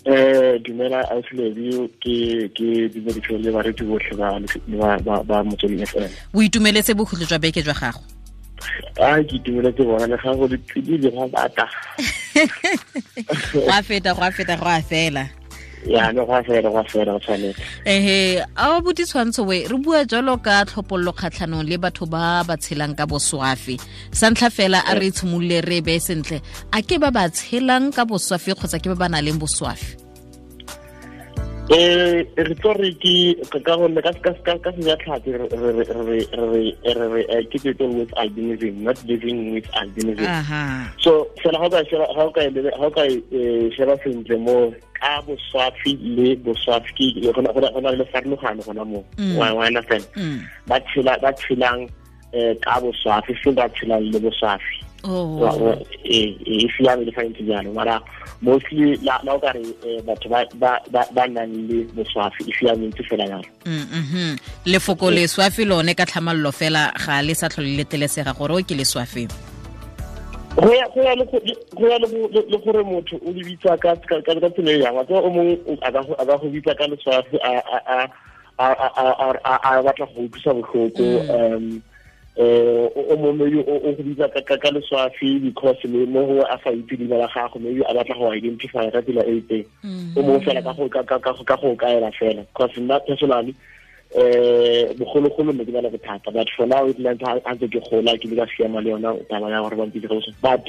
Dumela ausi, ke dumedise le bareetsi botlhe ba Motsweding FM. O itumeletse bokhutlo jwa beke jwa gago? A ke itumeletse bona, le ga go le tsididi go bata. Go a feta, go a feta, go a fela. Ya, no, go a fela, go a fela, go tshwanetse. Ehe, a bo ditshwantsho we re bua jalo ka tlhopollo kgatlhanong le batho ba ba tshelang ka boswafi. Sa ntlha fela, a re tshimolole re be sentle, a ke ba ba tshelang ka boswafi kgotsa ke ba ba nang le boswafi? Re tlo re ke ka gonne ka sejatlhapi re ke people with albinism, not living with albinism. So fela ga o ka sheba sentle mo ka boswafi le boswafi, ke go na le farologano gona mo, wa understand? Ba tshelang ka boswafi, se ba tshelang le boswafi. Ee, e siame le fa ntse jalo, mara mostly la o ka re batho ba nang le boswafi, e siame ntse fela jalo. Lefoko leswafi lone ka tlhamallo fela ga le sa tlhole le letlelesega gore o ke leswafi? Go ya le gore motho o le bitsa ka tsela e yang wa tseba. O mongwe a ka go bitsa ka leswafi a batla go utlwisa botlhoko. O mongwe maybe o go bitsa ka leswafi because le mo gongwe a sa itse leina la gago, maybe a batla go identify ka tsela e itseng. O mongwe fela ka go kaela fela, because nna personally bogologolo ne ke na le bothata, but for now it ntse a ntse ke gola, ke le ka siama le yona taba ya gore ba mpitse ka boswafi. But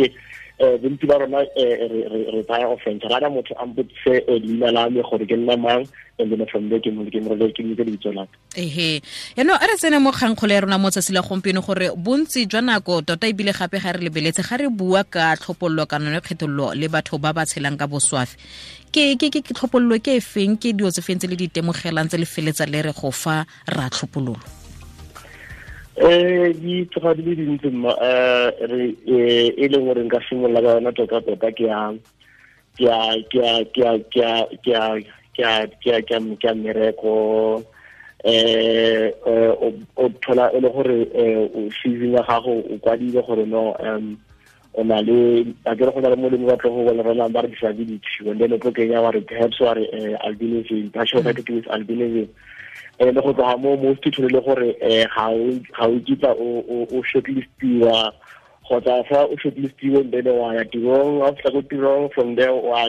bontsi ba rona re tsaya offense, rada motho a mpotse leina la me gore ke nna mang, and then from there ke mo ke lebitso la ka. Ehe, yaanong a re tsene mo kgangkgolo ya rona mo tsatsi la gompieno, gore bontsi jwa nako tota ebile gape ga re lebeletse, ga re bua ka tlhopololo kana yone kgethololo le batho ba ba tshelang ka boswafi, ke tlhopololo ke e feng, ke dilo tse feng tse le di itemogelang tse le feletsa le re go fa ra tlhopololo? Di tloga di le dintsi mma. Re e leng gore nka simolola ka yona tota tota ke ya ke ya ke ya ke ya ke ya ke ya ke ya ke ya ke ya ke ya mmereko. O thola e le gore o CV ya gago o kwadile gore no, o na le, a kere go na le molemo ba tlo go bona ba re disability, and then o tlo kenya wa re perhaps wa re albinism, partial with albinism. Le go tloga mo most thole le gore ga o kitla o shortlistiwa, kgotsa fa o shortlistiwe, then wa ya tirong, wa fihla ko tirong, from there wa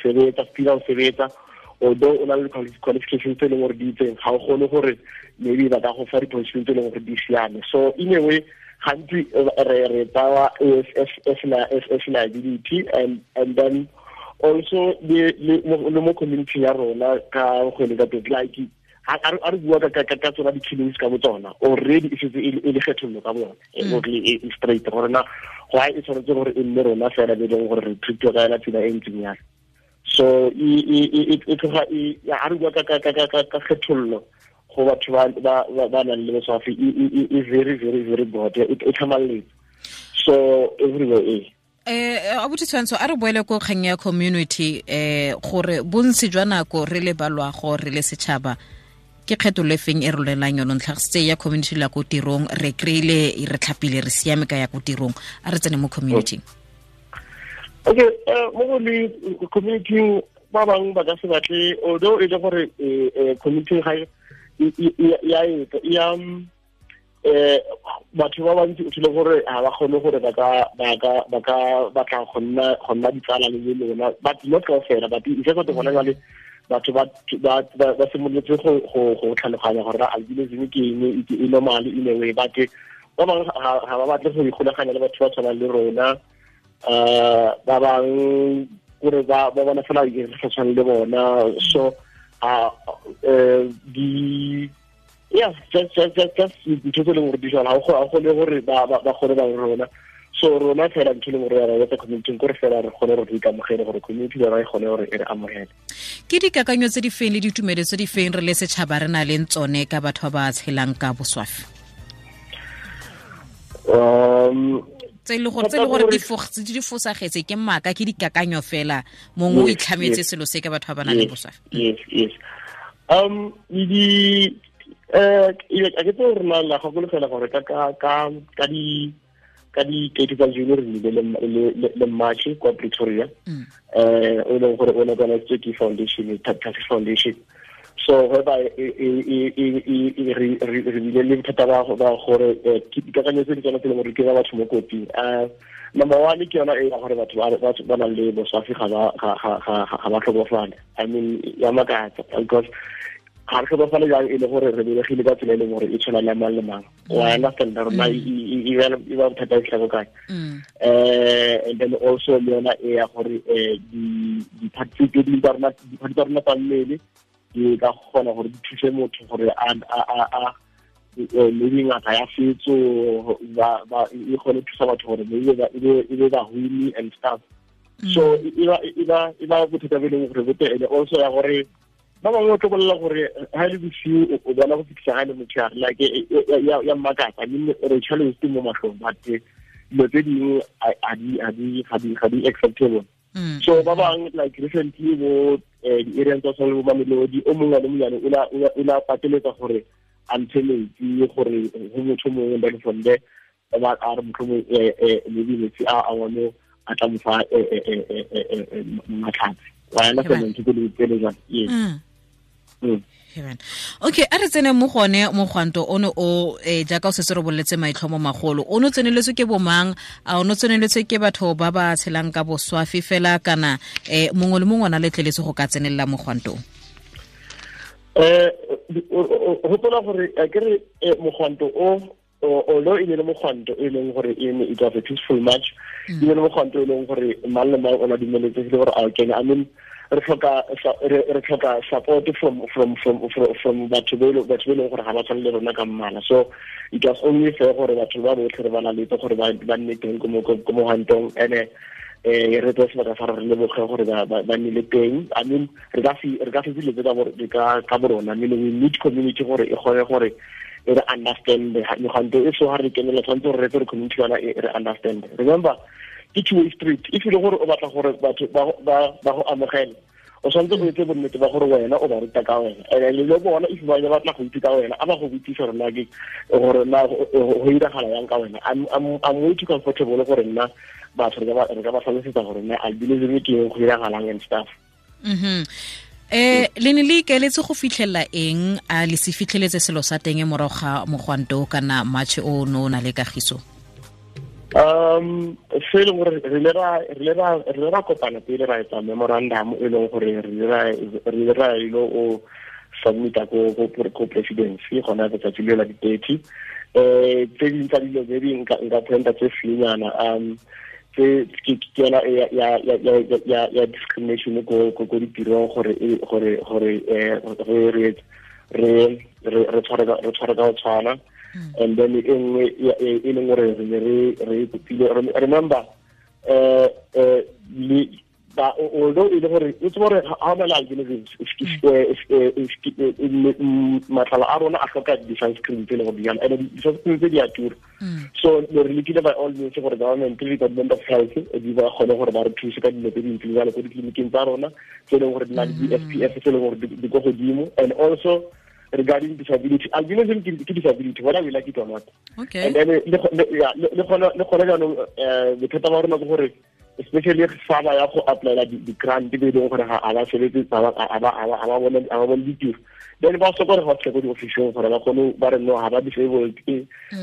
sebetsa, fila o sebetsa, although o na le qualifications tse e leng gore di itseng, ga o kgone gore maybe ba ka go fa di-position tse e leng gore di siame. So in a way, gantsi re tsawa as liability. And then also le mo community ya rona ka go le ka teng, like a re bua ka tsona di-killings ka bo tsona, already e setse e le kgethollo ka bone, e straight gore na why e tshwanetse gore e nne rona fela be leng gore re treatiwa ka yona tsela e ntseng yalo. So e tloga a re bua ka kgethollo go batho ba nang le boswafi, e very, very, very broad, e tlhamalletse so everywhere e. Abuti Tshwantsho, a re boele ko kgang ya community, gore bontsi jwa nako re le balwago, re le setšhaba, ke kgethollo e feng e rolelang yone ntlhagisitse ya community la ko tirong? Re kry-ile re tlhapile, re siame ka ya ko tirong, a re tsene mo community. Okay, mo go le community, ba bangwe ba ka se batle, although e le gore community ga ya ya batho ba bantsi o thole gore ga ba kgone gore ba ka batla go nna ditsala le lona, but not kaofela, but e se gona jale batho ba simolotse go tlhaloganya gore albinism ke eng, e normal in a way, but ba bangwe ga ba batle go ikgolaganya le batho ba tshwanang le rona. Ba bangwe kore ba bona fela re sa tshwane le bona. So di yeah, just ntho tse e leng gore di jalo, ga o kgone gore ba kgone ba rona. So rona fela ntho e leng gore ra etsa community kore fela re kgone gore re ikamogele, gore community yona e kgone gore e re amogele. Ke dikakanyo tse di feng le ditumelo tse di feng re le setšhaba re na leng tsone ka batho ba ba tshelang ka boswafi? Tse e le gore di fosagetse, ke maaka, ke dikakanyo fela, mongwe o itlhametse selo se ka batho ba ba nang le boswafi? Yes, di a ke tse re na la gakologela gore ka di Ka di 30 tsa June re nnile le march kwa Pretoria, o leng gore o ne organized ke foundation, Taxi Foundation. So whereby re bile le bothata ba gore dikakanyo tse di tswana tse leng gore ke ba batho mo kotsing. Number one ke yona e ya gore batho ba nang le boswafi ga ba tlhokofale. I mean, ya makatsa, because ga re tlhokofale jang e le gore re belegile ka tsela e leng gore e tshwana le mang le mang. Wa understand rona e ba bothata e tlhako kae. And then also le yona e ya gore di-part tse dingwe tsa rona, di-part tsa rona tsa mmele di ka kgona gore di thuse motho gore a maybe ngaka ya setso e kgone thusa batho gore maybe e be bahumi and stuff. So e ba bothata bo e leng gore bo teng. And also ya gore ba bangwe o tlo bolela gore ha e le bosiu o bona go fitlhisa ga e le motshegare, like ya mmakatsa. I mean, re challenge mo matlhong, but dilo tse dingwe ga di acceptable. So ba bangwe, like recently bo di-areang tsa tshwana le bo Mamelodi, o mongwe le monyane o la pateletsa gore a ntshe metsi gore go motho mongwe, then from there ba a re motlhomong maybe metsi a one a tla mo fa matlhatsi. Wa understand ntho tse le jang? Yes. Okay, a re tsene mo gone mogwanto ono o jaaka o setse re boletse maitlhomo magolo, o no tseneletswe ke bomang? A o no tseneletswe ke batho ba ba tshelang ka boswafi fela, kana mongwe le mongwe o na letleletse go ka tsenelela mogwanto? Gopola gore ke re mogwanto o although e ne le mogwanto e leng gore e ne it was a peaceful march, e ne le mogwanto e leng gore mang le mang o na dumeletsegile gore a o kene. I mean, re tlhoka support from batho ba e leng gore ga ba tshwane le rona ka mmala. So it was only fair gore batho ba botlhe re ba laletse gore ba nne teng ko mogwantong, and re tseye sebaka sa re leboge gore ba nnile teng. I mean, re ka se dilo tse ka borona. I mean, we need community gore e kgone gore e re understand megwanto e. So ga re kenela, tshwanetse gore re tse re community yona e re understand. Remember, ke two way street. If e le gore o batla gore batho ba go amogele, o tshwanetse o etse bonnete ba gore wena o ba ruta ka wena, and le bona if ba batla go itse ka wena, a ba go botsise gore na ke gore na go iragala yang ka wena. I'm way too comfortable gore nna batho re ka ba tlhalosetsa gore nna albinism ke eng, go iragalang and stuff. Le ne le ikaeletse go fitlhelela eng? A le se fitlheletse selo sa teng morago ga mogwanto kana march o no o na le kagiso? Se e leng gore re ile ra kopana pele ra etsa memorandum e leng gore re ile ra ilo o submita ko presidency gona letsatsi le la di-30. Tse dingwe tsa dilo maybe nka pointa tse fewnyana, tse ke yona ya discrimination ko ditirong, gore re tshware ka go tshwana. And then e nngwe e leng gore re ne re kopile, remember, although e le gore o tsebe gore ga o na le albinism, matlalo a rona a tlhoka di-sunscreen tse e leng gore di and di-sunscreen tse di a tura. So re lekile by all means gore government le Department of Health di ba kgone gore ba re thuse ka dilo tse dintseng jalo ko ditleliniking tsa rona tse e leng gore di na le di-SPF tse e leng gore di ko godimo. And also regarding disability, albinism ke disability whether we like it or not. Okay. And then le gona jaanong bothata ba rona ke gore especially fa ba ya go applyela di-grant be e leng gore ga ba sebetse, ga ba bone ditiro, then ba sokola gore ba fitlhe ko di-officing gore ba kgone ba re no ga ba disabled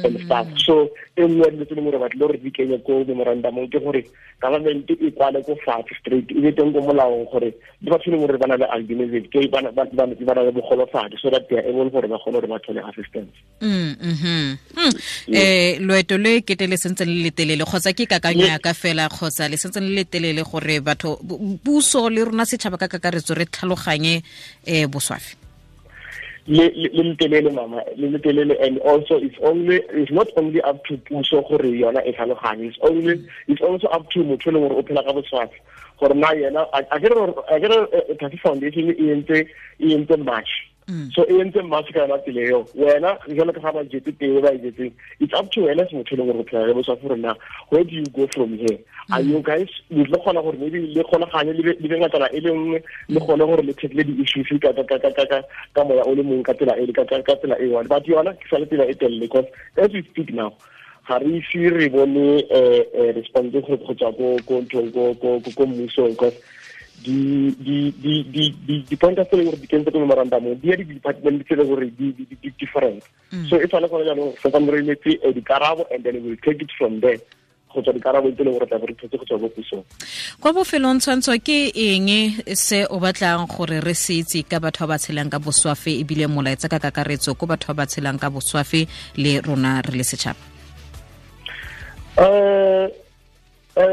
and stuff. So e nngwe ya dilo tse leng gore batle gore di kenye ko memorandumong ke gore government e kwale ko fatshe straight, e be teng ko molaong gore le batho e leng gore ba na le albinism ke ba na le bogolofadi, so that they are able gore ba kgone gore ba thole assistance. Loeto le kete le sentse le letelele, kgotsa ke kakanyo ya ka fela, kgotsa le sentse le letelele gore batho, puso le rona setšhaba ka kakaretso re tlhaloganye boswafi? Le letelele mama, le letelele. And also it's not only up to puso gore yona e tlhaloganye, it's also up to motho e leng gore o phela ka boswafi gore na yena a ke re Taxi Foundation e entse march. So e entse march ka yona tsela eo, wena jalo ka ga ba jetse teng ba e jetseng, it's up to wena se motho e leng gore o phela le boswafi gore na where do you go from here? Are you guys le kgona gore maybe le kgonaganye le be ngatana e le nngwe, le kgone gore le tackle di-issues ka moya o le mongwe ka tsela e ka tsela e one. But yona ke sa le tsela e telele, because as we speak now, Ga re ise re bone response go tswa ko nthong, ko mmusong, because di-pointers tse e leng gore di kentse ko memorandumong di ya di-department tse e leng gore di different. So e tshwane gone jaanong santsane re emetse dikarabo, and then we will take it from there go tswa dikarabo tse e leng gore tla bo re thotse go tswa ko pusong. Kwa bofelong, Tshwantsho, ke eng se o batlang gore re se itse ka batho ba ba tshelang ka boswafe, ebile molaetsa ka kakaretso ko batho ba ba tshelang ka boswafe le rona re le setšhaba? E re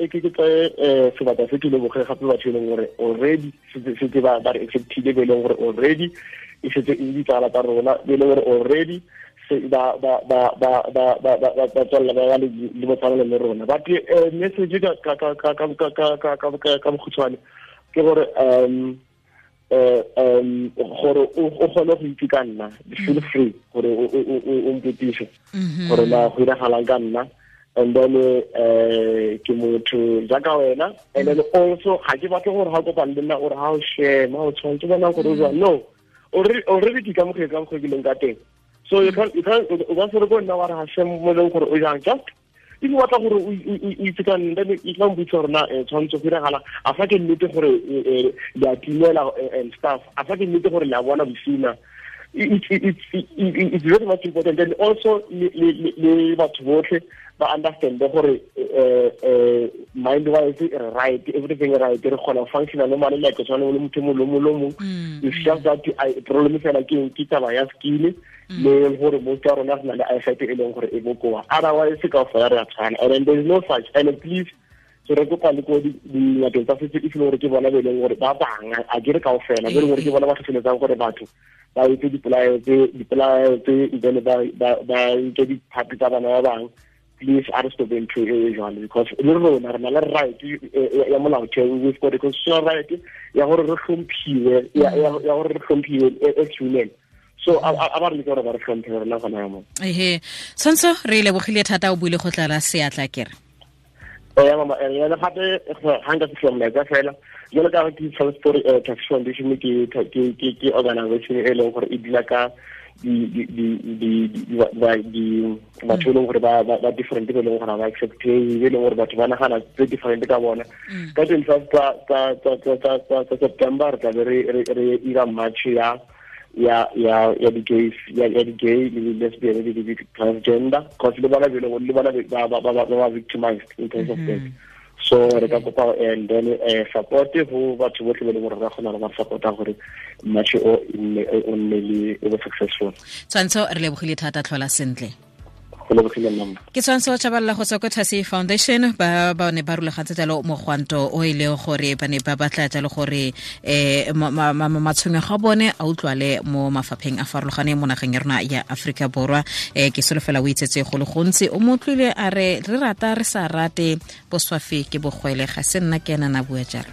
ke tsaye sebaka se ke leboge gape batho e leng gore already setse ba re acceptile, be e leng gore already e setse e ditsala tsa rona, be e leng gore already ba ba ba ba ba ba ba ba tswella ba le botsalano le rona. But message ka bokhutshwane ke gore gore o kgone go itse ka nna, feel free gore o mpotise gore na go iragalang ka nna. And then ke motho jaaka wena, and then also ga ke batle gore ga o kopane le nna ore ga o shema o tshwanetse bona gore o jang. No, already ke kamogetse ka mokgwa ke leng ka teng. So you can o ka se re ko nna wa re ga shem mo leng gore o jang. Just if o batla gore o itse ka nna, then e tla mpotsa gore na tshwanetse go iragala a fa ke nnete gore le a timela and stuff, a fa ke nnete gore le a bona bosina. It's very much important. And also le batho botlhe ba understand gore mind wise right, everything right, re kgona functional normally like tshwana le motho mongwe le mongwe le mongwe. It's just that problem fela ke taba ya skill le gore most ya rona re na le eyesight e leng gore e bokoa, otherwise ka fela re a tshwana, and then there is no such. And please, so re kopa le ko dingakeng tsa setso, if e le gore ke bona be e leng gore ba bangwe, a ke re kaofela, be e leng gore ke bona ba tlhotlheletsang gore batho ba etse dipolaeo tse, then ba nke diphapi tsa bana ba bangwe, please a re stop ntho e jwalo, because le rona re na le right ya molaotheo. We've got a constitutional right ya gore re hlomphiwe, ya gore re hlomphiwe as human. So a ba re leke gore ba re hlomphe rona gona ya mo. Ehe, Tshwantsho, re lebogile thata, o buile go tlala seatla kere. Ya mama, ya gape ga nka fitlhela molaetsa fela jalo ka ke Transport Taxi Foundation ke organization e leng gore e dila ka di batho e leng gore ba different, be e leng gore ba accepte, be e leng gore batho ba nagana tse different ka bona. Ka 25 tsa September re tlabe re ira march ya di-gays, ya di-gay le di-lesbian le di-transgender, cause le bona le bona ba victimized in terms of that. So re ka kopa and then support go batho botlhe ba e leng gore ba kgona go ba supporta gore march o nne le o be successful. Tshwantsho, re lebogile thata, tlhola sentle. Go lebogile nna. Ke Tshwantsho Tshabalala go tswa ko Thasi Foundation. Ba ne ba rulagantse jalo mogwanto o e leng gore ba ne ba batla jalo gore um matshwenyego a bone a utlwale mo mafapheng a farologaneng mo nageng ya rona ya Aforika Borwa. Ke solofela o itsetse go le gontsi. O mo utlwile a re re rata re sa rate, boswafi ke bogwele. Ga se nna ke ena na bua jalo.